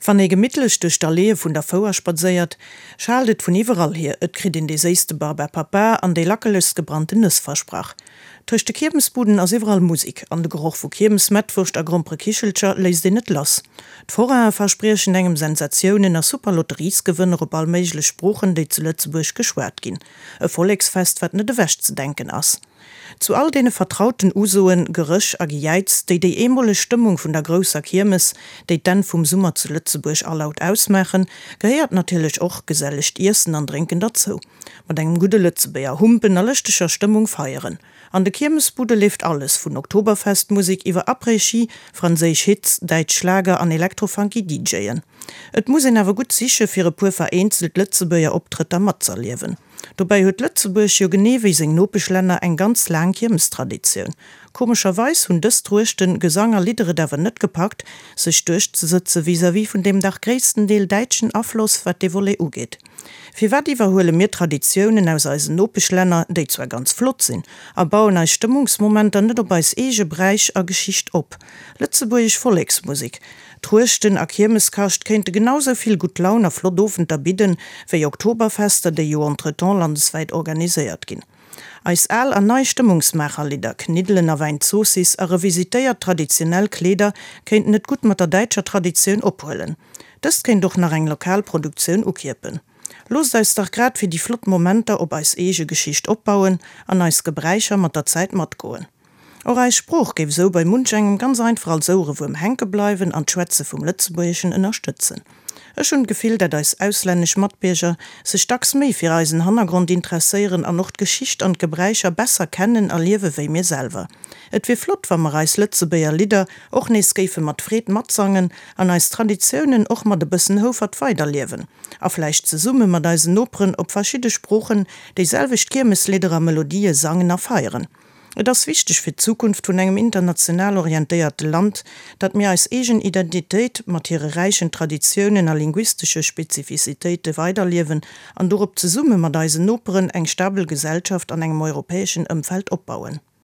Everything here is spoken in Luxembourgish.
Wann ee gemittlech duerch d'Alleeë vun der Fouer spadséiert, schaalt et vun iwwerall hier, et kritt een dee séisste Barbapapa an déi lackelegst gebrannten Nëss versprach. Tëscht de Kiermesbuden ass iwwerall Musek, an de Geroch vu Kiermesmettwurscht a Gromperekichelcher léisst een net lass. D'Forainen verspriechen engem Sensatiounen a super Lotteriesgewënner op all méiglech Sproochen, déi zu Lëtzebuerg geschwat ginn. E Volleksfest, wat net ewechzedenken ass. Zu all deene vertrauten Usoen, Geréch a Gejäiz, déi déi eemoleg Stëmmung vun der grousser Kiermes, déi d'Enn vum Summer zu Lëtzebuerg alaut ausmaachen, gehéiert natierlech och gesellegt Iessen an Drénken derzou. Mat engem gudde Lëtzebuerger Humpen a lëschteger Stëmmung feieren. An de Kiermesbude leeft alles, vun Oktoberfestmusek iwwer Après-Ski, franséisch Hits, däitsch Schlager an elektrofunky DJen. Et muss een awer gutt siche fir e puer vereenzelt Lëtzebuerger Optrëtter matzerliewen. Dobäi huet Lëtzebuerg jo genee wéi seng Nopeschlänner eng ganz laang Kiermestraditioun. Komescherweis hunn dës Truechten, Gesang a Lidder et awer net gepackt, sech duerchzesëtze vis-à-vis vun deem dach gréisstendeel däitschen Afloss, wat dee Volet ugeet. Firwat iwwerhuele mir Traditiounen aus eisen Nopeschlänner, déi zwar ganz flott sinn, a bauen eis Stëmmungsmomenter net op eis eege Bräich a Geschicht op? Lëtzebuergesch Volleksmusek, Truechten a Kiermeskascht kéinte genau sou vill gutt Laun a flott Owenter bidden, wéi Oktoberfester, déi jo entretemps landeswäit organiséiert ginn. Eis al an nei Stëmmungsmaacherlidder, Kniddelen a Wäinzoossiss a revisitéiert traditionell Kleeder kéinten et gutt mat der däitscher Traditioun ophuelen. Dëst kéint och nach eng lokal Produktioun ukierpen. Loosst eis dach grad fir déi flott Momenter op eis eege Geschicht opbauen an eis Gebräicher mat der Zäit matgoen. Och eis Sprooch géif esou bei munch engem ganz einfach als Ouerewuerm hänke bleiwen an d'Schwätze vum Lëtzebuergeschen ënnerstëtzen. Ech hunn d'Gefill, dat eis auslännesch Matbierger sech dacks méi fir eisen Hannergrond interesséieren an och d'Geschicht an d'Gebräicher besser kennen a liewe wéi mir selwer. Et wier flott, wa mer eis Lëtzebuerger Lidder och nees géife mat Freed matsangen an eis Traditiounen och mat e bëssen Houfert weiderliewen a vläicht zesumme mat eisen Noperen op verschidde Sproochen déi selwecht Kiermeslidder a Melodië sangen a feieren. Et ass wichteg fir d'Zukunft vun engem international orientéierte Land, datt mir eis eegen Identitéit mat hire räichen Traditiounen a linguistesche Spezifizitéite weiderliewen an dorop zesumme mat eisen Noperen eng stabel Gesellschaft an engem europäeschen Ëmfeld opbauen.